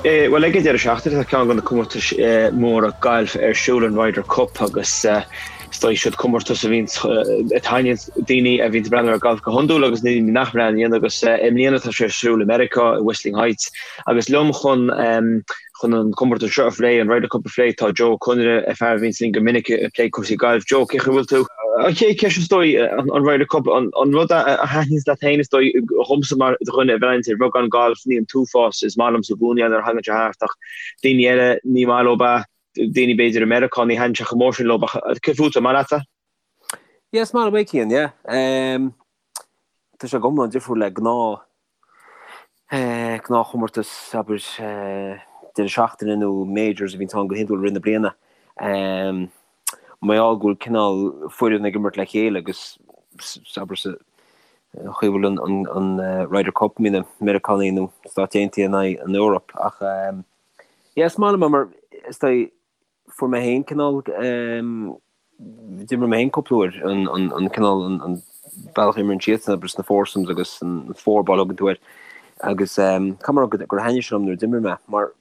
Bhuel, ag an deireadh seachtaine tá ceann de na comórtais móra gailf ar siúl, an Ryder Cup, agus is dóigh siod comórtas a bhíonns, a thaitníonns daoine a bhíonns ag breathnú ar galf go hiondúil agus na daoine nach mbreathnaíonn agus i mbliana tá sé ar siúl i Meiriceá, i Whistling Heights agus liom chun Chun an comórtas seo a phlé, an Ryder Cup a phlé, tá Joe Ó Conaire, fear a bhíonns linn go minic ag plé cúrsaí gailf. Joe, cén chaoi a bhfuil tú? An chéad cheist is dóigh, an Ryder Cup, an rud a thaitníonns leat féin is dóigh, dhomsa mar dhuine a bhreathnaíonns ar bheagán gailf, ní an t-uafás is maith liomsa i gcónaí nuair a thagann sé thart ach daoine eile ní maith leo é, daoine b'fhéidir i Meiriceá ní thaitníonn sé chomh mór sin leo ach céard fútsa, an maith leatsa? Yeah, is maith liom é Cian, yeah. Tá sé go hiomlán difriúil le gnáth gnáthchomórtas, abair, deireadh seachtaine nó majors a bhíonns ann go hiondúil i rith na bliana. Mar gheall go bhfuil cineál foireann ag imirt le chéile agus, abair, sa chaoi a bhfuil an Ryder Cup, mbíonn na Meiriceánaigh nó Stáit Aontaithe in aghaidh an Eoraip. Ach yeah, is maith liom é mar is dóigh fuair mé féin cineál, d'imir mé féin cúpla uair an cineál, an bealach a imríonn siadsan, abair sna foursomes agus an four ball a thugann tú air agus caithfidh mé a rá gur thaitnigh sé liom nuair a d'imir mé mar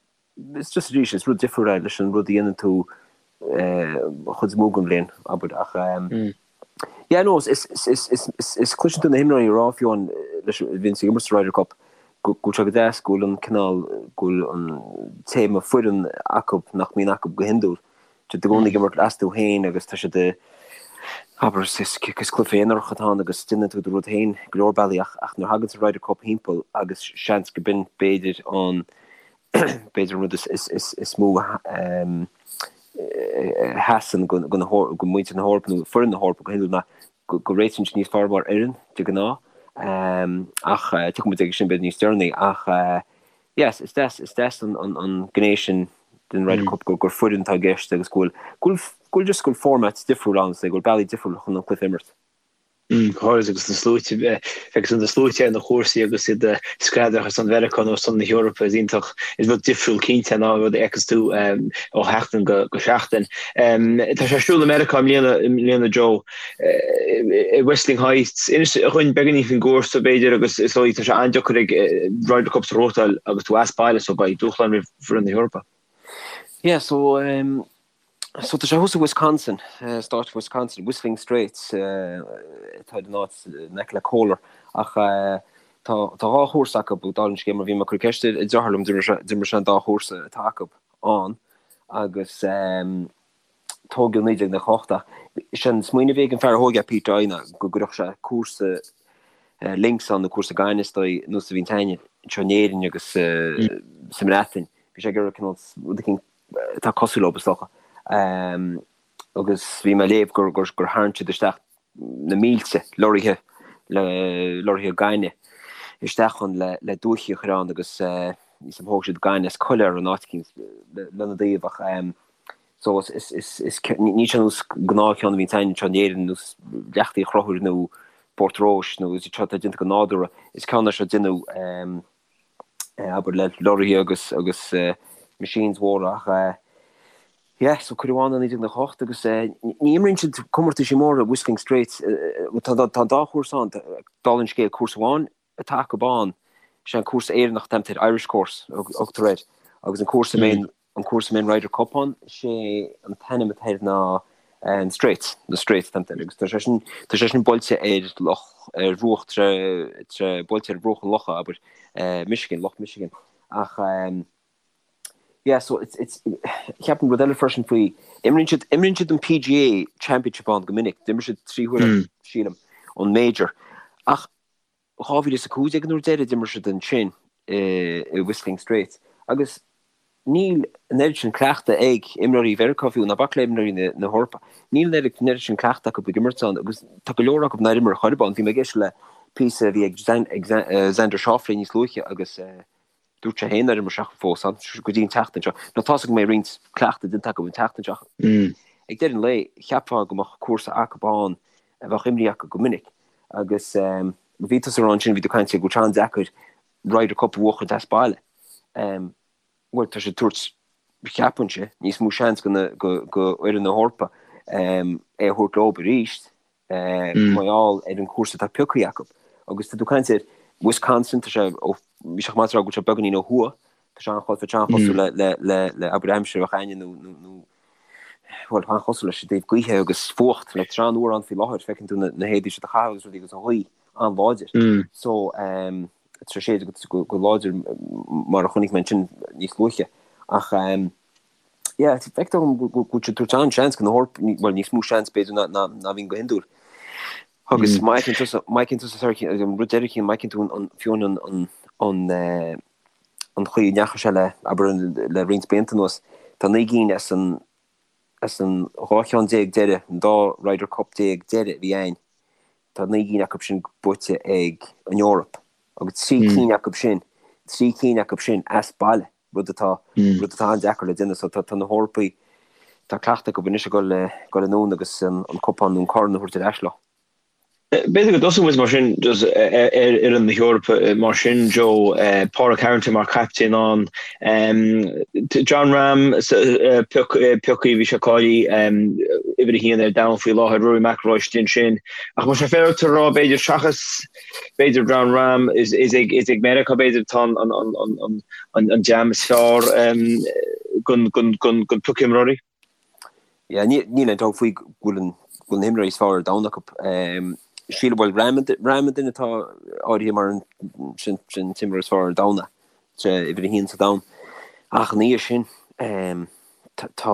it's just arís is rud difriúil é leis an rud a dhéanann tú an chuid is mó den bhliain, abair ach Yeah no is is is is cloiseann tú na himreoirí ag rá fiú amháin leis a bhíonns ag imirt sa Ryder Cup go bhfuil sé go deas go bhfuil an cineál go bhfuil an téama foireann acu nach mbíonn acu go hiondúil. Tá siad i gcónaí ag imirt astu féin agus tá siad abair is is is cluiche aonarach atá ann agus déanann tú do rud féin go leor bealaí ach ach nuair a thagann an Ryder Cup thimpeall agus seans go b'in b'fhéidir an b'fhéidir an rud is mó a sheasann go muintir na hEorpa nó foireann na hEorpa go hiondúil ná go réitíonn siad níos fearr mar fhoireann de ghnáth. Ach tiocfaidh muid aige sin b'fhéidir níos deireanaí. Ach yes, is deas, is deas an gné sin den Ryder Cup gur foireann atá i gceist agus go bhfuil, go bhfuil just go bhfuil format difriúil ann, go bhfuil bealaí difriúil chun an cluiche a imirt. Go háirid agus na sluaite, agus na sluaite ar na cúrsaí agus iad ag screadach ar son Mheiriceá nó ar son na hEorpa is iontach, is rud difriúil cinnte ná an rud a fheiceas tú ó sheachtain go seachtain. Tá sé ar siúl i Meiriceá i mbliana, i mbliana Joe, i Whistling Heights. Inis dhúinn beagáinín faoin gcúrsa b'fhéidir agus is dóigh tá sé an-deacair ag Ryder Cups a ghnóthachtáil agus tú as baile so beidh dúshlán roimh foireann na hEorpa. Yeah so So tá sé thuas i Wisconsin, stát Wisconsin, Whistling Straits atá ar an áit in aice le Kohler ach tá tá dhá chúrsa acu dála an scéil mar bhí mé ag cur ceist ar deartháir liom d'imir sé an dá chúrsa atá acu ann agus tógadh 1998 ach sé an smaoineamh a bhí ag an fear a thóg é Pete Dye ná go gcuirfeadh sé cúrsa links ann nó cúrsa gainimh is dóigh nós a bhíonn againne anseo in Éirinn agus sa mBreatain. Bhí sé ag iarraidh cineál rud eicínt atá cosúil leo, is dócha. Agus bhí mé ag léamh gur gur tharraing siad isteach na mílte lorraithe le lorraithe gainimh isteach ann le le dúichí a chur ann agus níos thóg siad gaineamh as coiléar in áit eicínt lena dtaobh ach so is is is is ní sé nós gnáthcheann a bhíonn againn anseo in Éirinn nós Leacht Uí Chonchúir nó Port Rois nó is seo atá déanta go nádúrtha is ceann é seo déanadh abair le lorraithe agus agus machines mhóra ach yeah so cuireadh ann i 1998 agus ní imríonn siad comórtaisí móra Whistling Straits tá tá an dá chúrsa ann dála an scéil cúrsa amháin atá acu ann sé an cúrsa Éireannach atá air Irish course a thugtar air agus an cúrsa a mbíonn an cúrsa a mbíonn Ryder Cup ann, sé an t-ainm atá air ná an Straits, na Straits atá air, agus tá sé sin, tá sé sin buailte ar loch, ar bhruach tre, tre, buailte ar bhruach an locha, abair, Michigan, Loch Michigan. Ach yeah, so it's, it's, ceapaim rud eile freisin faoi, imríonn siad, imríonn siad an PGA Championship ann go minic, d'imir siad 3 huaire, sílim, an Major. Ach 2015 an uair deiridh a d'imir siad ansin i Whistling Straits agus níl an oiread sin cleachtadh ag imreoirí Mheiriceá fiú, ná bac le imreoirí na hEorpa. Níl an oiread sin cleachtadh acu ag imirt ann agus tá go leor acu nár imir chor ar bith ann. Bhí mé ag éisteacht le píosa a bhí ag Xander Schauffele níos luaithe agus dúirt sé féin nár imir sé fós ann go dtí an tseachtain seo. Now tá's agam go mbeidh roinnt cleachtadh déanta acu an tseachtain seo ach ag deireadh an lae cheapfá go mbeadh cúrsa acu ann a bheadh imrithe acu go minic agus bhí tusa ag rá ansin, bhí tú ag caint go bhfuil sé an-deacair Ryder Cup a bhuachaint as baile. Bhuel tá sé ag tabhairt, cheapfainnse, níos mó seans go fhoireann na hEorpa é a thabhairt leo arís mar gheall ar an chúrsa atá pioctha acu. Agus tá tú ag caint ar Wisconsin, tá sé, ó, bhí sé chomh maith is a rá go bhfuil sé beagáinín ó thuaidh. Tá sé an-chosúil le, le, le, le abair aimsir a bheadh againne nó, nó, nó, bhuel, an-chosúil leis i dtaobh gaoithe agus fuacht, like, tá sé an-fhuar ann faoi láthair, feiceann tú na, na héadaí siad a chaitheamh agus rudaí agus an ghaoth an-láidir. So, um, tá sé go, go láidir mar a chonaic mé ansin níos luaithe. Ach, um, yeah, feictear dom go bhfuil siad ag tabhairt an-seans go na hEorpaigh, bhuel, níos mó seans b'fhéidir ná, ná, ná bhíonn go hiondúil. Agus má fheiceann tusa, má fheiceann tusa, sorry, an rud deiridh, má fheiceann tú an, an, fiú an, an, an, eh, an chaoi a ndeachaigh sé le, abair, le roinnt blianta anuas, tá 9 gcinn as an, as an 12 cheann deiridh, an dá Ryder Cup deiridh a bhí ann, tá 9 gcinn acu sin buaite ag an Eoraip agus 3 cinn acu sin, 3 cinn acu sin as baile, rud atá, rud atá an-deacair le déanamh. So tá, tá na hEorpaigh, tá cleachtadh acu anois ag dul, dul anonn agus an, an cupán nó an corn a thabhairt ar ais leo. B'fhéidir go dtosóidh muid mar sin just ar fhoireann na hEorpa mar sin, Joe, Pádraig Harrington mar chaptaen ann, Jon Rahm pioctha, bhí sé cáilithe uimhir a haon ar domhan faoi láthair, Rory McIlroy istigh ansin. Ach más é féidir a rá b'fhéidir seachas b'fhéidir Jon Rahm is ag is ag Meiriceá b'fhéidir atá an dream is fearr den pioc imreoirí. Yeah, níl aon dabht faoi go bhfuil an go bhfuil na himreoirí is fearr ar domhan acu. Sílim bhuel Rahm Rahm an duine atá áirithe mar an sin sin t-imreoir is fearr ar domhan é, sé uimhir a haon sa domhan. Ach ina dhiaidh sin tá tá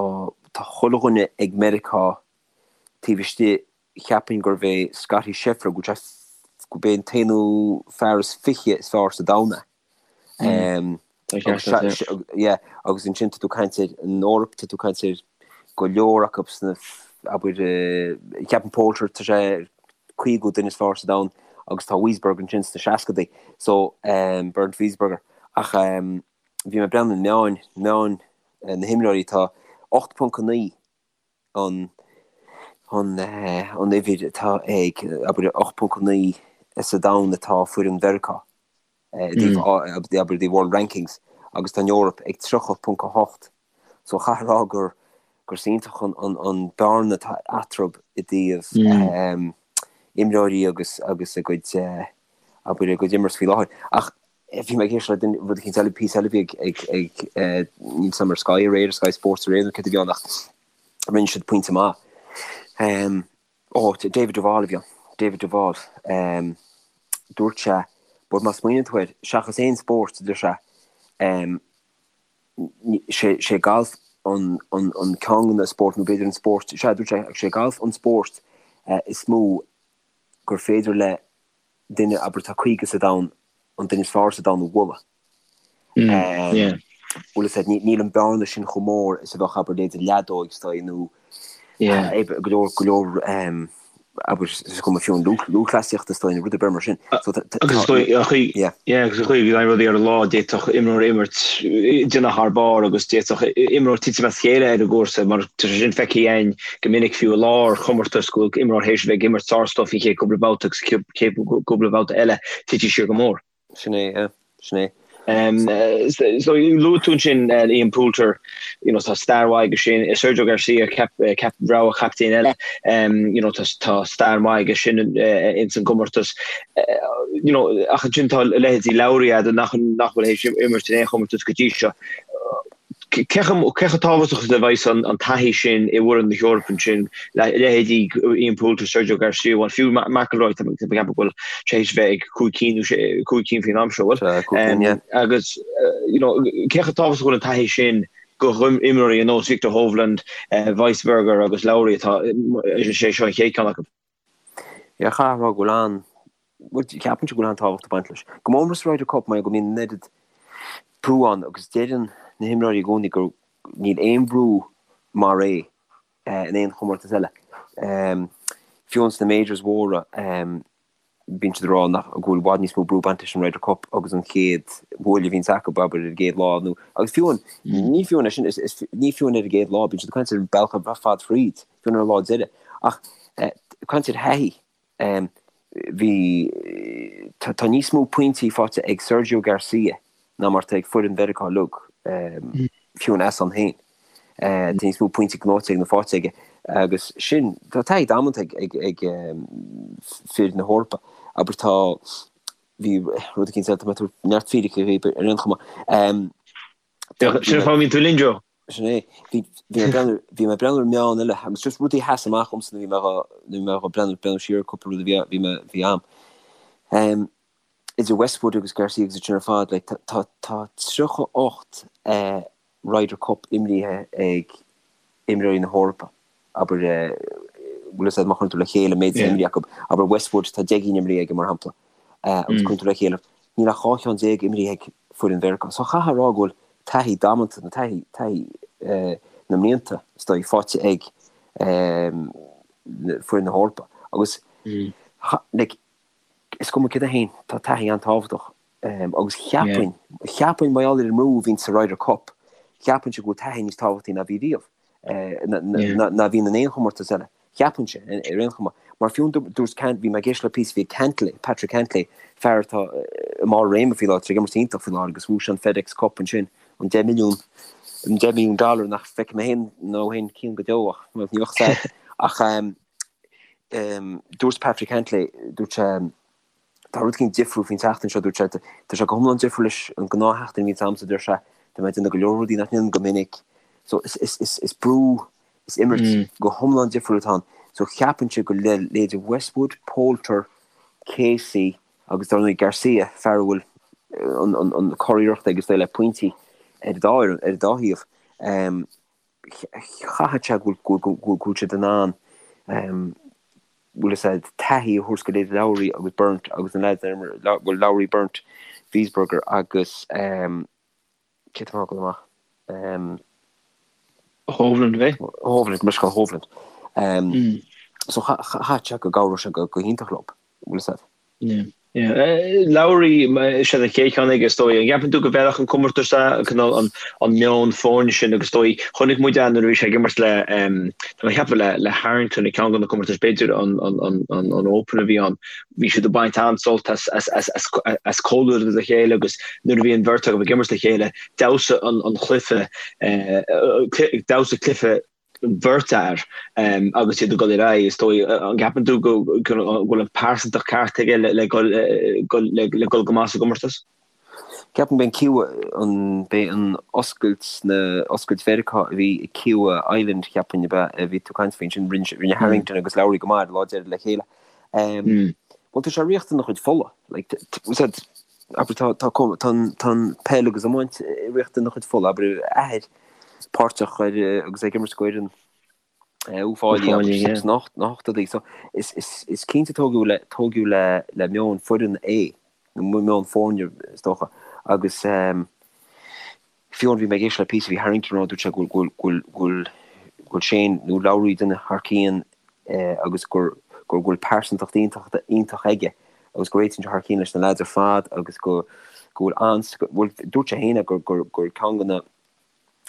tá chuile dhuine ag Meiriceá taobh istigh cheapfainn gurbh é Scottie Scheffler go bhfuil sé gurb é an t-aonú fear is fiche is fearr sa domhan é. Yeah, agus ansin tá tú ag caint ar an Eoraip, tá tú ag caint ar go leor acu sna, abair, ceapaim Poulter, tá sé ar 50 duine is fearr sa domhan agus tá Wiesberger ansin sna seascadaí, so Bernd Wiesberger. Ach bhí mé ag breathnú ar na meáin, meáin na himreoirí, tá 8.9 an an an uimhir atá ag, abair, 8.9 sa domhan atá foireann Mheiriceá i dtaobh, abair, the World Rankings agus tá an Eoraip ag 30.8. So chaithfeá a rá gur gur iontach an an an bearna atá eatarthu i dtaobh imreoirí agus agus a gcuid, abair, a gcuid imirt faoi láthair. Ach bhí mé ag éisteacht le duine, rud eicínt eile, píosa eile a bhí ag, ag, ag, níl 's agam ar Sky aréir, Sky Sports aréir nó céard a bhí ann ach rinne siad pointe maith. Ó, David Duval a bhí ann, David Duval. Dúirt sé, but má smaoiníonn tú air, seachas aon spórt, a deir sé, sé, sé galf an, an, an ceann de na spóirt, nó b'fhéidir an spórt, sea, dúirt sé, sé galf an spórt is mó gur féidir le duine, abair, atá 50 sa domhan, an duine is fearr sa domhan a bhualadh. Bhfuil fhios a'd, níl an bearna sin chomh mór is a bheadh, abair, leithéid leadóig is dóigh, nó go leor, go leor, abair, is cuma fiú an lúthchleasaíocht is dóigh, nó rud ar bith mar sin. Agus is dóigh, an chaoi, yeah, agus an chaoi a bhíonn rudaí ar an lá, d'fhéadfadh imreoir imirt, déanamh thar barr agus d'fhéadfadh imreoir titim as a chéile ar an gcúrsa mar tá sé sin feicthe againn go minic fiú i lár chomórtas go bhfuil imreoir théis a bheith ag imirt sár-stuif an chéad cúpla babhta agus chéad cúpla babhta eile titfidh siar go mór. Sin é, yeah. Sin é. So luaigh tú ansin Ian Poulter, you know, tá stair mhaith aige sin, Sergio Garcia, cap, cap, rogha chaptaen eile, you know, tá, tá stair mhaith aige sin ins an gcomórtas. You know, ach ansin tá leithéidí Lowry agat nach, nach bhfuil théis imirt in aon chomórtas go dtí seo. Cé chomh tábhachtach is a bheas an taithí sin i bhfoireann na hEorpa ansin, leithéidí Ian Poulter, Sergio Garcia, bhuel fiú McIlroy, tá mé ag ceapadh go bhfuil sé théis bheith ag cúig cinn nó cúig cinn faoin am seo, bhfuil? Agus you know cé chomh tábhachtach a bhfuil an taithí sin go imreoirí ar nós Viktor Hovland, Wiesberger agus Lowry atá, is é seo an chéad ceann acu. Yeah, chaithfeá a rá go bhfuil an, bhuel, ceapaimse go bhfuil an-tábhacht ag baint leis. Go mór mór sa Ryder Cup mar go mbíonn an oiread brú ann agus deireann na himreoirí i gcónaí gur níl aon bhrú mar é in aon chomórtas eile. Fiú ins na majors mhóra, bíonn siad ag rá nach, go bhfuil i bhfad níos mó brú ag baint leis an Ryder Cup agus an chéad bhuaile a bhíonns acu, abair, ar an gcéad lá nó, agus fiú an, ní fiú an é sin, is, is, ní fiú an ar an gcéad lá, bíonn siad ag caint ar an bealach ar fad fríd, fiú an ar an lá deiridh. Ach caint ar thaithí, bhí, tá, tá níos mó pointí faighte ag Sergio Garcia ná mar atá ag foireann Mheiriceá uilig, fiú an as ann féin. Tá níos mó pointí gnóite ag ná faighte aige agus sin, tá taithí damanta ag ag fir na hEorpa. Abair tá, bhí rud eicínt eile, tá mé ag tabhairt neart fíricí dhaoibh ar aon chuma. Sin an fáth a mbíonn tú linn, Joe. Sin é. Bhí mé ag breathnú, bhí mé ag breathnú ar meon eile agus just rudaí a sheas amach dhomsa nuair a bhí mé dhá, nuair a bhí mé dhá breathnú, breathnú siar ar cúpla rud a bhí, bhí mé, bhí a'm. Em, idir Westwood agus Garcia agus iad sin ar fad, like, tá, tá, tá 38 eh, Ryder Cup imrithe ag imreoirí na hEorpa, abair, bhfuil fhios a'd má chuireann tú le chéile an méid atá imrithe acu, abair Westwood tá 10 gcinn imrithe aige mar shampla, agus cuireann tú le chéile, níl ach 12 cheann imrithe ag foireann Mheiriceá. So chaithfeá a rá go bhfuil taithí damanta, nó taithí, taithí na mblianta, is dóigh, faighte ag foireann na hEorpa. Agus, like, is cuma céard é féin, tá taithí an-tábhachtach. Agus cheapfainn, cheapfainn mar gheall ar an mbrú a bhíonn sa Ryder Cup, cheapfainnse go bhfuil taithí níos tábhachtaí ná bhí riamh, ná bhíonn in aon chomórtas eile. Cheapfainnse, ar aon chuma. Mar fiú dúirt Cant, bhí mé ag éisteacht le píosa, bhí Cantlay, Patrick Cantlay, fear atá i mbarr réime faoi láthair, tá sé ag imirt iontach faoi láthair agus bhuaigh sé an FedEx Cup ansin, an 10 milliún, an 10 milliún dollar nach bhfeicfidh mé féin nó féin Cian go deo ach ní bheadh sad. Ach dúirt Patrick Cantlay, dúirt sé, Tá rud éicint difriúil faoin tseachtain seo, dúirt sé. Tá sé go hiomlán difriúil leis an gnáthsheachtain a bhíonns a'msa, deir sé. Tá mé ag déanamh go leor rudaí nach ndéanaim go minic. So is, is, is, is brú, is imirt go hiomlán difriúil atá ann. So cheapfainnse go le leithéidí Westwood, Poulter, Casey agus dar ndóigh Garcia, fear a bhfuil an, an, an curiarracht aige is dóigh le pointí ar an dá fhoireann, ar an dá thaobh. Chaithfeadh sé go bhfuil, go bhfuil, go bhfuil siad in ann bhfuil fhios a'd, taithí a thabhairt go leithéidí Lowry agus Bernd agus na leaids ar imir, bhuel Lowry, Bernd, Wiesberger agus ehm cé tá mé a fhágáil amach? Ehm. Hovland, bhí? Hovland, Michael Hovland. Ehm so chaithfeadh sé go gcabhródh sé go hiontach leo, bhfuil fhios a'd. Yeah. Yeah. Lowry, sé an chéad cheann aige is dóigh. An gceapann tú go bhfeilfeadh an comórtas é, cineál an, an meon foirne sin agus is dóigh, chonaic muid é nuair a bhí sé ag imirt le, tá mé ag ceapadh le, le Harrington ag ceann de na comórtais, b'fhéidir an, an, an, an, an Open a bhí ann, bhí siad ag baint an-sult as, as, as, as, as comhluadar le chéile agus nuair a bhí an bheirt acu ag imirt le chéile, d'fheabhsaigh an, an cluiche, d'fheabhsaigh cluiche bheirt fhear agus iad ag dul ar aghaidh, is dóigh. An gceapann tú go bhfuil an pearsantacht ceart aige le dul go maith sa gcomórtas? Ceapaim b'é an Kiawah, an, b'é an oscailt na, oscailt Mheiriceá a bhí i Kiawah Island cheapfainn ab ea a bhí tú ag caint faoi ansin, rinne, rinne Harrington agus Lowry go maith ar an lá deiridh le chéile. Bhuel tá sé ag riocht ina chuid fola, like, said, abair tá, tá, tá an, tá an peil agus iomáint ag riocht ina chuid fola, abair a athair, páirteach ar agus ag imirt d'fhoireann Uíbh Fhailí agus sna hochtóidí. So is cinnte tógadh le tógadh le le meon foireann é, nó meon foirne is dócha. Agus fiú bhí mé ag éisteacht le píosa bhí Harrington ag rá dúirt sé go bhfuil go bhfuil go bhfuil Shane nó Lowry duine thar cionn agus gur go bhfuil pearsantacht iontach iontach aige agus go réitíonn sé thar cionn leis na lads ar fad agus go go bhfuil an bhuel dúirt sé féin gur gur gur ceann de na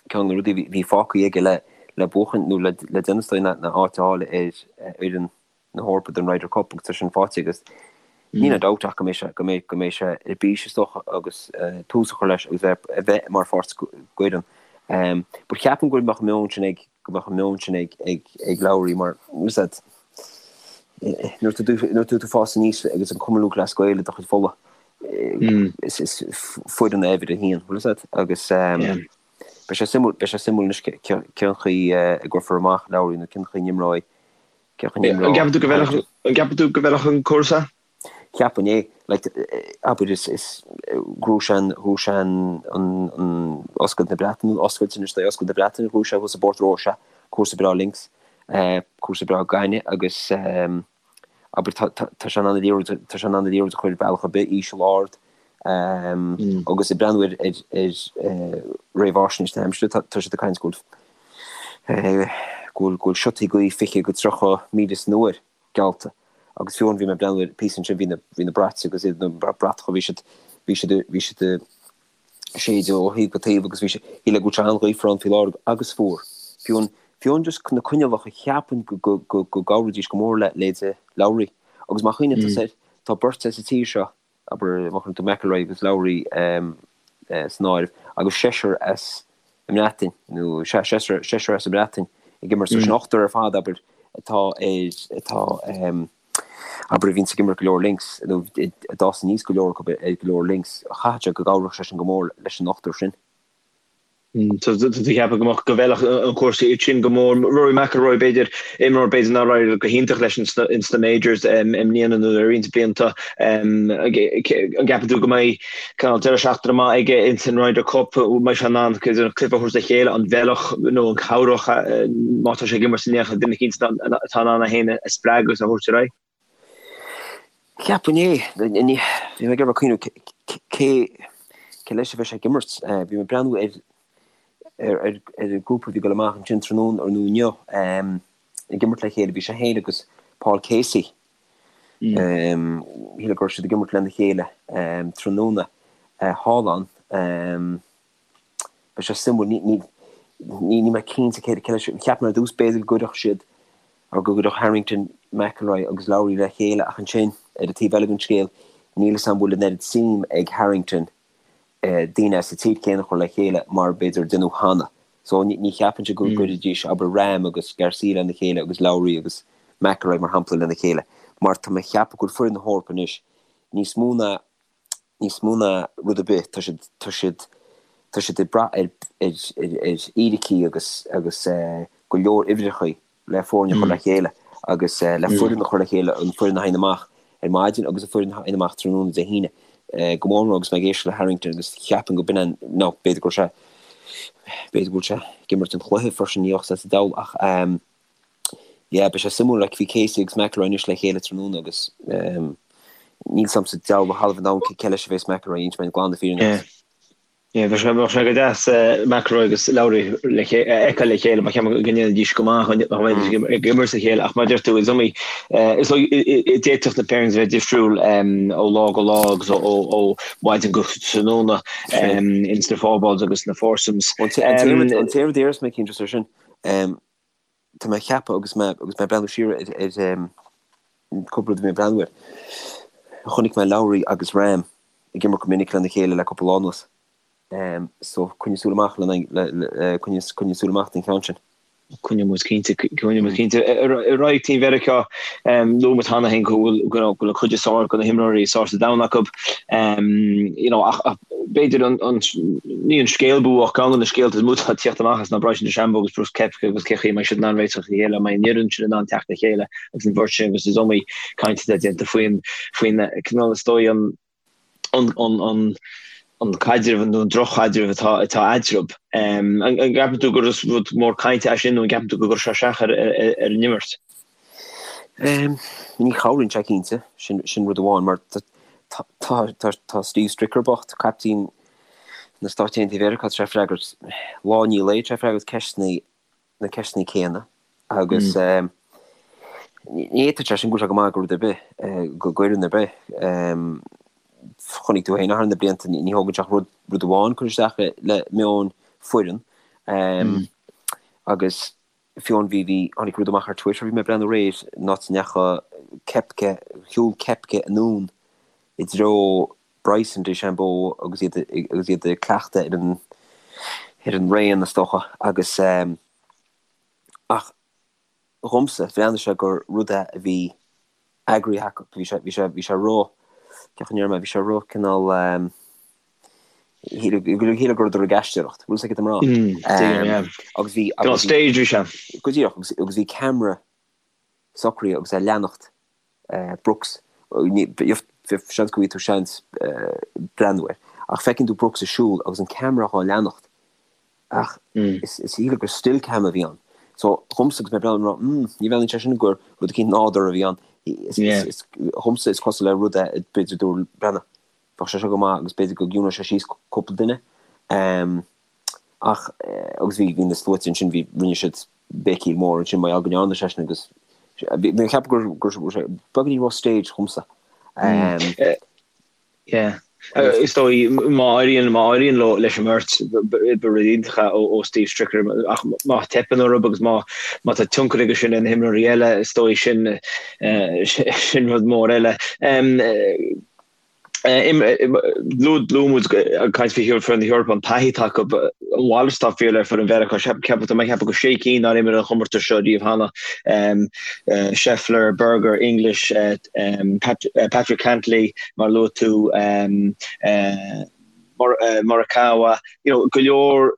ceann de na rudaí a bhí fágtha aige le le buachan nó le le déanamh is dóigh ná ná áit a fháil ar fhoireann na hEorpa don Ryder Cup agus tá sin faighte agus níl aon dabht ach go mbeidh sé go mbeidh go mbeidh sé ar bís is dócha agus tús a chur leis agus bheith a bheith mar pháirt d'fhoireann. But cheapfainn go mbeadh an meon sin ag go mbeadh an meon sin ag ag ag Lowry mar is that nuair atá tú nuair atá tú fás aníos agus an Cumann Lúthchleas Gael i do chuid fola is is foireann é uimhir a haon bhfuil fhios a'd agus beidh sé suimiúil beidh sé suimiúil anois cén chaoi a gcuirfear amach Lowry nó cén chaoi a n-imreoidh cén chaoi a n-imreoidh An gceapann tú go bhfeilfeadh an gceapann tú go bhfeilfeadh an cúrsa? Cheapfainn é. Like, abair is, is, ghnóthaigh sé an, ghnóthaigh sé an, an, an Oscailt na Breataine, Oscailt anois, é Oscailt na Breataine, ghnóthaigh sé thuas i bPort Rois, cúrsa breá links, cúrsa breá gainimh agus abair tá, tá, tá sé in ann an liathróid, tá sé in ann an liathróid a chur ar bhealach ar bith, íseal, ard, agus ag breathnú ar, ar, ar réamhaisnéis na haimsire, tá, tá siad ag caint go bhfuil, go bhfuil, go bhfuil siotaí gaoithe 20 go 30 míle san uair. geallta. Agus fiú amháin bhí mé ag breathnú ar píosa ansin, bhí na, bhí na brait agus iad, na bratacha, bhí siad, bhí siad, bhí siad ag séideadh ó thaobh go taobh agus bhí sé, shíl mé go bhfuil sé an-ghaofar ann faoi láthair agus fuar. Fiú an, fiú an just na coinníollacha, cheapfainn go, go, go, go gcabhróidís go mór le leithéide Lowry. Agus má chuimhníonn tusa air, tá beirt as an tír seo, abair, má chuireann tú McIlroy agus Lowry san áireamh, agus seisear as an mBreatain, nó sea, seisear, seisear as an mBreatain ag imirt, so sin ochtar ar fad, abair, atá ar, atá, abair, a bhíonns ag imirt go leor links, nó a d'fhás aníos go leor acu ar go leor links, chaithfeadh sé go gcabhródh sé sin go mór leis an ochtar sin. Tá tú ag ceapadh go mbeadh go bhfeilfeadh an cúrsa iad sin go mór. Rory McIlroy b'fhéidir, imreoir b'fhéidir nár éirigh go hiontach leis ins na majors i mbliana nó le roinnt blianta. An gceapann tú go mbeidh cineál deireadh seachtaine maith aige ins an Ryder Cup? An mbeidh sé in ann an cluiche a thabhairt le chéile, an bhfeilfeadh nó an chabhródh má tá sé ag imirt in éineacht le duine eicínt atá in ann é féin a spreagadh agus a thabhairt ar aghaidh? Cheapfainn é. Bhí mé ag iarraidh cuimhneamh cé cé leis a bheidh sé ag imirt. Bhí mé ag breathnú ar ar an grúpa a bhí ag dul amach ansin tráthnóna nó inniu ag imirt le chéile. Bhí sé féin agus Paul Casey. Shíl go raibh siad ag imirt lena chéile tráthnóna thall ann. Beidh sé suimiúil. Ní níl mé cinnte cé cé leis. Cheap mé ar dtús b'fhéidir go gcuirfeadh siad or go gcuirfeadh Harrington, McIlroy agus Lowry le chéile ach ansin, ar an taobh eile den scéal, níl 'fhios a'm an bhfuil an oiread suim ag Harrington daoine as an tír céanna a chur le chéile mar b'fhéidir a deineadh cheana. So ní cheapfainnse go gcuirfidís, abair, Rahm agus Garcia lena chéile agus Lowry agus McIlroy mar shampla lena chéile mar tá mé ag ceapadh go bhfuil foireann na hEorpa anois níos mó ná níos mó ná rud ar bith, tá siad, tá siad, tá siad ag brath ar, ar, ar, ar fhíricí agus, agus go leor uimhreachaí le foirne a chur le chéile agus le foireann a chur le chéile, an foireann a théann amach ar maidin agus an foireann a théann amach tráthnóna Dé hAoine. Go mór mór agus mé ag éisteacht le Harrington agus cheapfainn go b'in an, nó b'fhéidir go raibh sé, b'fhéidir go bhfuil sé ag imirt an chluiche freisin, ní bheadh sé sa diabhal ach Yeah, beidh sé suimiúil, like, bhí Casey agus McIlroy anois le chéile tráthnóna agus níl 'fhios a'msa deabhal a thalamh an domhain cé leis a bheas McIlroy, inseoidh mé glan na fírinne Yeah. duit. Yeah, bheadh sé, bheadh sé go deas McIlroy agus Lowry le ché- a fheiceáil le chéile, mar ceapaim go ndéanfaidís go maith dá mbeidís ag ag imirt le chéile, ach mar a deir tú, is iomaí, is dóigh, d'fhéadfadh na pairings a bheith difriúil ó lá go lá agus ó, ó, ó mhaidin go tráthnóna ins na fourballs agus na foursomes. An t-aon rud, an t-aon rud a déarfas mé, cinnte, ar sin, Tá mé ag ceapadh agus mé agus mé ag breathnú siar ar ar cúpla rud a bhí mé ag breathnú air. Chonaic mé Lowry agus Rahm ag imirt go minic lena chéile le cúpla lá anuas. So coinnigh súil amach le le coinnigh coinnigh súil amach don cheann sin. Coinneoidh muid cinnte, coinneoidh muid cinnte. Ar aghaidh Team Mheiriceá, luaigh muid cheana féin go bhfuil go bhfuil an chuid is fearr de na himreoirí is fearr sa domhan acu. You know, ach b'fhéidir an, an, ní an scéal ba mhó ach ceann de na scéalta is mó atá ag tíocht amach as ná Bryson DeChambeau agus Brooks Koepka agus cé chaoi a mbeidh siad in ann réiteach le chéile, an mbeidh an fhoireann sin in ann teacht le chéile agus an bheirt sin agus is iomaí caint atá déanta faoin, faoin cineál is dóigh an, an, an, an, an caidreamh nó an drochchaidreamh atá, atá eatarthu. An, an gceapann tú gur rud mór cainte é sin nó an gceapann tú go gcuirfidh sé isteach ar, ar, ar an imirt? Ní chabhraíonn sé cinnte, sin rud amháin, mar tá Steve Stricker bocht, caiptín na Stáit Aontaithe Mheiriceá, tá sé ag freagairt lá i ndiaidh lae, tá sé ag freagairt ceisteanna, na ceisteanna céanna agus ní fhéadfadh sé sin go bhfuil sé go maith go rud ar bith, go bhfoireann ar bith. Chonaic tú féin thar na blianta, ní thógann sé ach rud amháin cur isteach le meon foireann agus Fiú bhí, bhí, tháinig rud amach ar Twitter, bhí mé ag breathnú aréir, an áit a ndeachaigh Koepka, shiúil Koepka anonn i dtreo Bryson DeChambeau agus iad, agus iad ag cleachtadh ar an, ar an raon is dócha agus ehm, ach dhomsa, bhreathnaigh sé gur rud é a bhí eagraithe acu, bhí sé, bhí sé, bhí sé ró, cén chaoi a ndéarfaidh mé, bhí sé ró cineál ehm, shíl go rabhadar ag aisteoireacht, bhfuil a fhios agat cad tá mé a rá. Mm, agus bhí agus staged bhí sé. Go díreach agus agus bhí ceamara socraithe agus é ag leanacht Brooks. Seans go bhfaighidh tú seans breathnú air. Ach feiceann tú Brooks ag siúl agus an ceamara dhá leanacht. Ach is shíl gur still cam a bhí ann. So dhomsa agus mé ag breathnú rá, mm, ní bhreathnaíonn sé sin gur rud eicínt nádúrtha a bhí ann. Dhomsa is cosúil le rud é b'fhéidir dúradh breathnaigh. Bheadh sé seo go maith agus b'fhéidir go gciúnódh sé síos cúpla duine. Ach, agus bhí, bhí na sluaite ansin, bhí, rinne siad béicíl mór ansin mar gheall go ndearna sé sin agus bhí mé ag ceapadh gur, gur, gur sé beagáinín ró-staged dhomsa. Yeah. Is dóigh, má éiríonn, má éiríonn leo leis an mbeirt, ba rud iontach é ó Steve Stricker, ach má theipeann orthu agus má, má tá tionchar aige sin ar na himreoirí eile, is dóigh sin, sin rud mór eile. Luaigh muid ag caint faoi foireann na hEorpa an taithí atá acu, a mhalairt atá fíor le foireann Mheiriceá. Ceapaim, tá mé ag ceapadh go sé cinn nár imir an chomórtas seo riamh cheana, Scheffler, Berger, English, Patrick Cantlay, mar a luaigh tú, Morikawa, you know, go leor.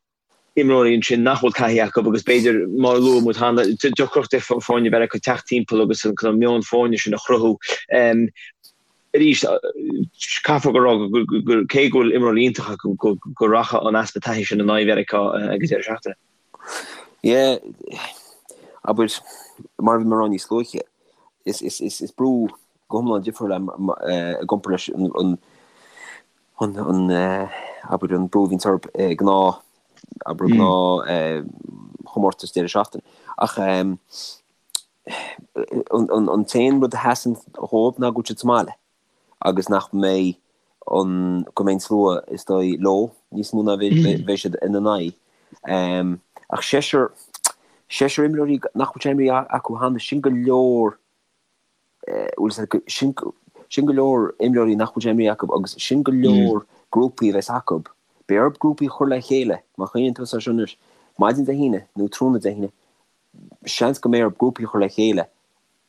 Imreoirí ansin nach bhfuil taithí acu agus b'fhéidir, mar a luaigh muid cheana, deacracht ag foirne Mheiriceá teacht timpeall agus an cineál meon foirne sin a chruthú. Arís, caithfear go rá gur cé go bhfuil imreoirí iontacha acu go rachaidh an easpa taithí sin in aghaidh Mheiriceá ag an deireadh seachtaine. Yeah, abair, mar a bhí mé ag rá níos luaithe, is brú go hiomlán difriúil é i gcomparáid leis an an, abair, an brú a bhíonns orthu i ngnáth, abair, gnáth chomórtas deireadh seachtaine. Ach an t-aon rud a sheasann dhóibh ná go bhfuil siad sa mbaile agus nach mbeidh an, go mbeidh an slua is dóigh leo níos mó ná bheidh siad ina n-aghaidh. Ach seisear, seisear imreoirí nach bhfuil sé imeartha acu cheana, sin go leor sin sin go leor imreoirí nach bhfuil sé imeartha acu agus sin go leor grúpaí a bheas acu. Beidh orthu grúpaí a chur le chéile, má chuimhníonn tú air seo anois, maidin Dé hAoine nó tráthnóna Dé hAoine, seans go mbeidh orthu grúpaí a chur le chéile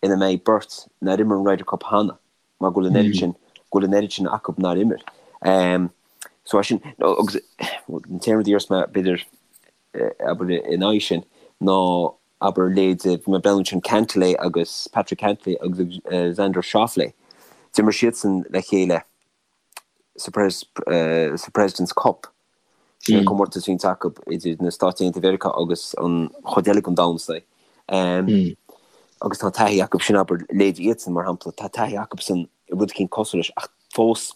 ina mbeidh beirt nár imir an Ryder Cup cheana mar go bhfuil an oiread sin, go bhfuil an oiread sin acu nár imir. So sin, agus an t-aon rud a déarfas mé b'fhéidir, abair in aghaidh sin ná abair leithéid, bhí mé ag breathnú ansin Cantlay agus Patrick Cantlay agus Xander Schauffele, d'imir siadsan le chéile sa sa President's Cup, sin an comórtas a bhíonns acu idir na Stáit Aontaithe Mheiriceá agus an chuid eile den domhan is dóigh. Agus tá taithí acu sin abair leithéid iadsan mar shampla, tá taithí acusan i rud eicínt cosúil leis ach fós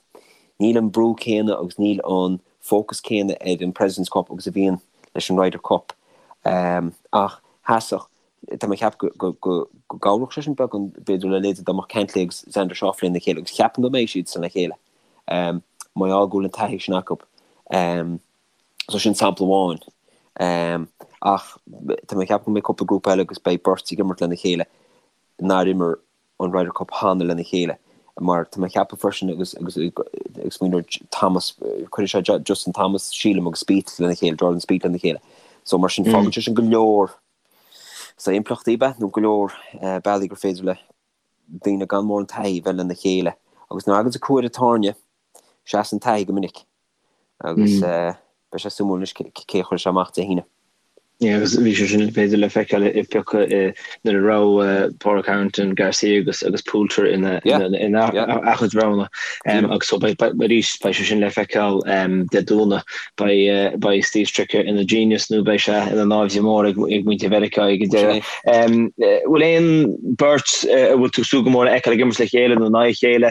níl an brú céanna agus níl an fócas céanna ar an President's Cup agus a bhíonn leis an Ryder Cup. Ach sheasfadh, tá mé ag ceapadh go gcabhródh sé sin beagán b'fhéidir le leithéid dá mbeadh Cantlay agus Xander Schauffele lena chéile agus ceapaim go mbeidh siadsan le chéile mar gheall go bhfuil an taithí sin acu. So sin sampla amháin. Ach tá mé ag ceapadh go mbeidh cúpla grúpa eile agus beidh beirt ag imirt lena chéile nár imir an Ryder Cup cheana lena chéile mar tá mé ag ceapadh freisin agus agus ag smaoineamh ar Thomas, cuirfidh sé Justin Thomas, sílim, agus Spieth lena chéile, Jordan Spieth lena chéile. So mar sin fágann sé sin go leor sa impleachtaí be nó go leor bealaí gur féidir le daoine gan mórán taithí bheith lena chéile. Agus nuair a thagann tú cuaire tairne, seasann taithí go minic agus beidh sé suimiúil anois cé a chuirfidh sé amach Dé hAoine. Yeah, agus bhí sé sin b'fhéidir le feiceáil i bpiocadh nuair a raibh Pádraig Harrington, Garcia agus agus Poulter ina ina a chuid roghanna. Agus so beidh arís beidh sé sin le feiceáil Dé Domhnaigh. Beidh beidh Steve Stricker ina genius nó beidh sé ina náimhde mór ag ag muintir Mheiriceá ag an deireadh. Bhfuil aon beirt a bhfuil tú ag súil go mór a fheiceáil ag imirt le chéile nó in aghaidh a chéile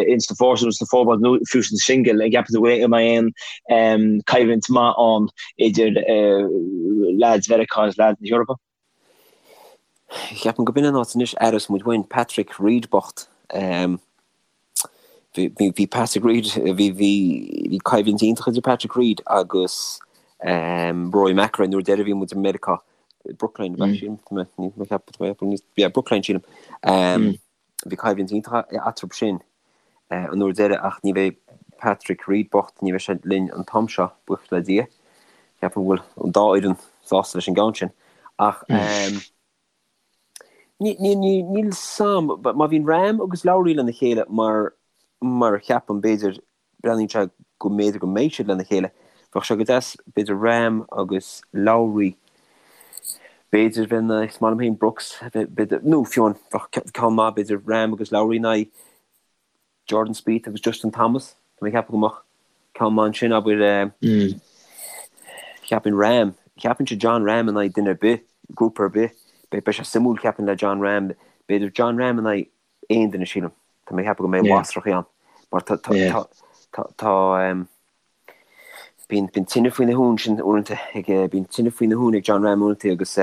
ins na foursomes, sna fourballs nó fiú sna singil, an gceapann tú go mbeidh aon coimhlint maith ann idir leaids Mheiriceá agus leaids na hEorpa? Ceapaim go b'in an áit anois aireos muid uainn Patrick Reed bocht. Bhí Patrick Reed, bhí bhí coimhlint iontach idir Patrick Reed agus Rory McIlroy nuair deireadh bhí muid i Meiriceá, Brookline, sílim, yeah, Brookline sílim. Bhí coimhlint iontach eatarthu sin an uair deiridh ach ní bheidh Patrick Reed bocht, ní bheidh sé linn an t-am seo, buíochas le Dia. Ceapaim go bhfuil an dá fhoireann sásta leis an gceann sin. Ach níl 'fhios a'm, má bhíonn Rahm agus Lowry lena chéile mar mar a cheapaim b'fhéidir Breathnaíonn sé go mb'fhéidir go mbeidh siad lena chéile. Bheadh sé go deas, b'fhéidir Rahm agus Lowry, b'fhéidir bheith in aghaidh, is maith liom féin Brooks, b'fhéidir, nó fiú amháin, bheadh ceann maith, b'fhéidir Rahm agus Lowry in aghaidh Jordan Spieth agus Justin Thomas. Tá mé ag ceapadh go mbeadh ceann maith ansin, abair, cheapfainn Rahm, cheapfainnse Jon Rahm in aghaidh duine ar bith, grúpa ar bith, beidh sé suimiúil cheapfainn le Jon Rahm, b'fhéidir Jon Rahm in aghaidh aon duine sílim. Tá mé ag ceapadh go mbeidh lasrachaí ann mar tá tá tá bíonn bíonn tine faoina thóin sin uaireanta ag bíonn tine faoina thóin ag Jon Rahm uaireanta agus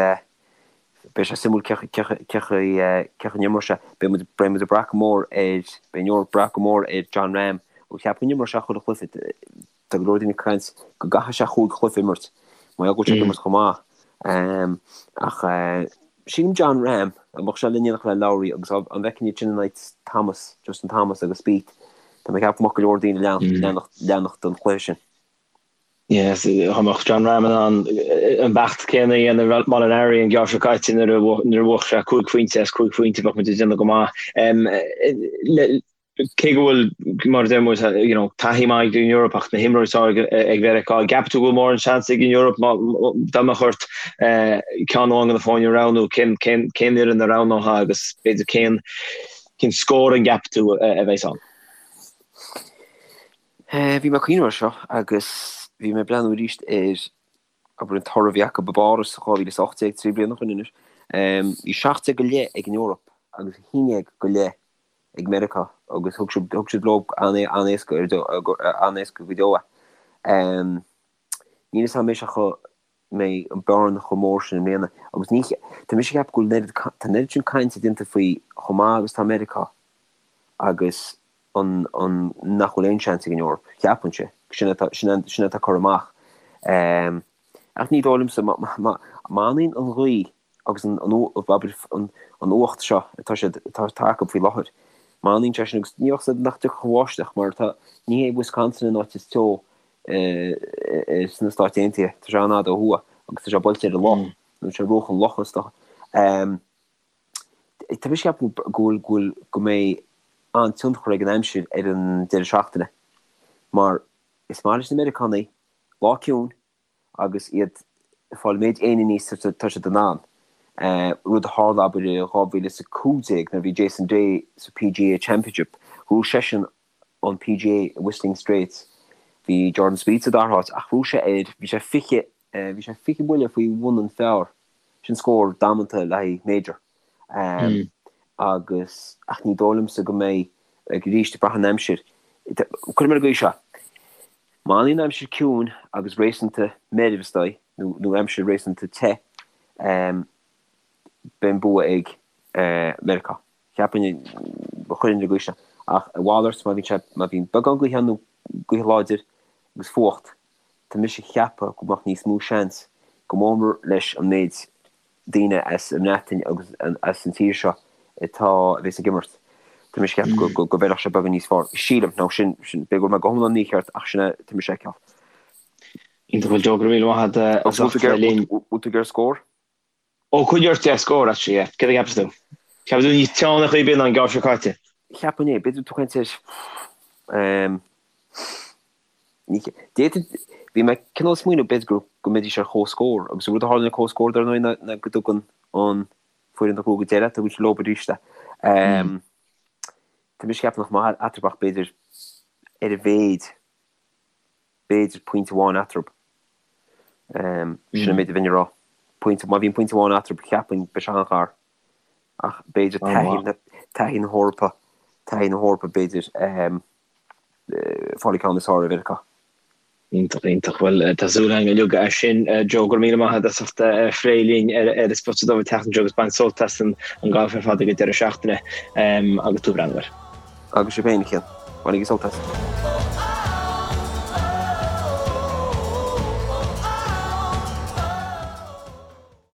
beidh sé suimiúil cé cé cé cé chaoi n-imreoidh sé. Beidh muid beidh muid ag brath go mór ar beidh an Eoraip ag brath go mór ar Jon Rahm agus ceapaim go n-imreoidh sé chuile chluiche. Tá go leor daoine ag caint go gcaithfidh sé chúig chluiche a imirt mar gheall go bhfuil sé ag imirt chomh maith. Ach sílim Jon Rahm, dá mbeadh sé in éineacht le Lowry agus an bhfeicfinn iad sin in aghaidh Thomas, Justin Thomas agus Spieth, tá mé ag ceapadh go mbeadh go leor daoine ag leanacht don chluiche sin. Yes, dá mbeadh Jon Rahm in ann an beacht céanna a dhéanamh Molinari an geábh seo caite nuair a bhuaigh sé cúig phointe as cúig phointe bheadh muid ag déanamh go maith. Cé go bhfuil, mar a deir muid, you know, taithí maith ag an Eoraip ach na himreoirí is fearr ag Mheiriceá, an gceapann tú go bhfuil mórán seans ag an Eoraip dá mbeadh ort ceann amháin de na foirne a roghnú, cén fhoireann a roghnófá agus b'fhéidir cén cén scór an gceapann tú a bheas ann? Bhí mé ag cuimhneamh air seo agus bhí mé ag breathnú arís ar abair an toradh a bhí acu i bPáras 2018, 3 bliana ó shin anois. Bhí 17 go leith ag an Eoraip agus 11 go leith ag Meiriceá agus thug siad thug siad leo an-éasca an-éasca go deo é. Níl fhios a'm anois an mbeidh an bearna chomh mór sin i mbliana agus ní tá mise ag ceapadh go bhfuil an oiread tá an oiread sin cainte déanta faoi chomh maith agus tá Meiriceá agus an an nach bhfuil aon seans ag an Eoraip, cheapfainnse. Sin atá sin sin atá curtha amach. Ach ní dóigh liomsa má má má fhanann an ghaoth agus an an abair an an fhuacht seo atá siad atá atá acu faoi láthair, má fhanann sé sin agus ní bheadh siad nach dtiocfadh an bháisteach mar tá ní hé Wisconsin an áit is teo sna Stáit Aontaithe, tá sé an-fhada ó thuaidh agus tá sé buailte ar an loch, nó sé bruach an locha is dócha. Tá mise ag ceapadh go bhfuil, go bhfuil, go mbeidh an-tionchar ag an aimsir ar an deireadh seachtaine mar is maith leis na Meiriceánaigh lá ciúin agus iad ag fáil an méid éin aníos is atá siad in ann. Rud a tharla abair i 2015 nuair a bhí Jason Day sa PGA Championship, ghnóthaigh seisean an PGA i Whistling Straits. Bhí Jordan Spieth sa dara háit ach ghnóthaigh sé ar, bhí sé 20, bhí sé 20 buille faoi bhun an phar. Sin scór damanta le haghaidh major. Agus, ach ní dóigh liomsa go mbeidh, arís, ag brath an aimsir. Cuirim ar an gcaoi seo, má fhanann an aimsir ciúin agus réasúnta meirbh is dóigh, nó, nó aimsir réasúnta te, beidh an bua ag Meiriceá. Cheapfainn, chuirfinn ar an gcaoi seo. Ach a mhalairt, má bhíonn sé, má bhíonn beagán gaoithe ann nó gaoth láidir agus fuacht, tá mise ag ceapadh go mbeadh níos mó seans, go mór mór leis an méid daoine as an mBreatain agus as an tír seo atá, a bhéas ag imirt, tá mise ag ceapadh go, go, go bhfeilfeadh sé beagán níos fearr. Sílim, nó sin, sin, b'fhéidir go bhfuil mé go hiomlán mícheart ach sin é, tá mise ag feiceáil. Iontach, bhuel Joe, go raibh míle maith agat as ucht a bheith linn. Bhfuil tú ag iarraidh scór? Ó, coinnigh ort, yeah, scór, actually, yeah. Céard a cheapas tú? Ceapann tú níos teo ar chaoi ar bith ná an geimhreadh seo caite? Cheapfainn é. B'fhéidir tú caint ar, ehm, ní, d'fhéadfainn, bhí mé cineál ag smaoineamh b'fhéidir go, go mbeidís ar comhscór agus an rud a tharlaíonn ar comhscór dar ndóigh ná, ná go dtugann an foireann a ghnóthaigh go deireadh, tugann siad leo arís é. Ehm, tá mise ag ceapadh nach mbeadh eatarthu ach b'fhéidir ar a mhéid, b'fhéidir pointe amháin eatarthu. Sin an méid a bheinn ag rá. Pointe, má bhíonn pointe amháin eatarthu, cheapfainn, beidh sé an-ghar. Ach b'fhéidir taithí na hEorpa, taithí na hEorpa b'fhéidir fáil an ceann is fearr ar Mheiriceá. Iontach, iontach. Bhuel, tá súil againn uilig as sin. Joe, go raibh míle maith agat as ucht a phlé linn ar an Spota Dubh an tseachtain seo agus bain sult as an galf ar fad ag an deireadh seachtaine agus tú ag breathnú air. Agus sibh féin, a Chian. Bainigí sult as.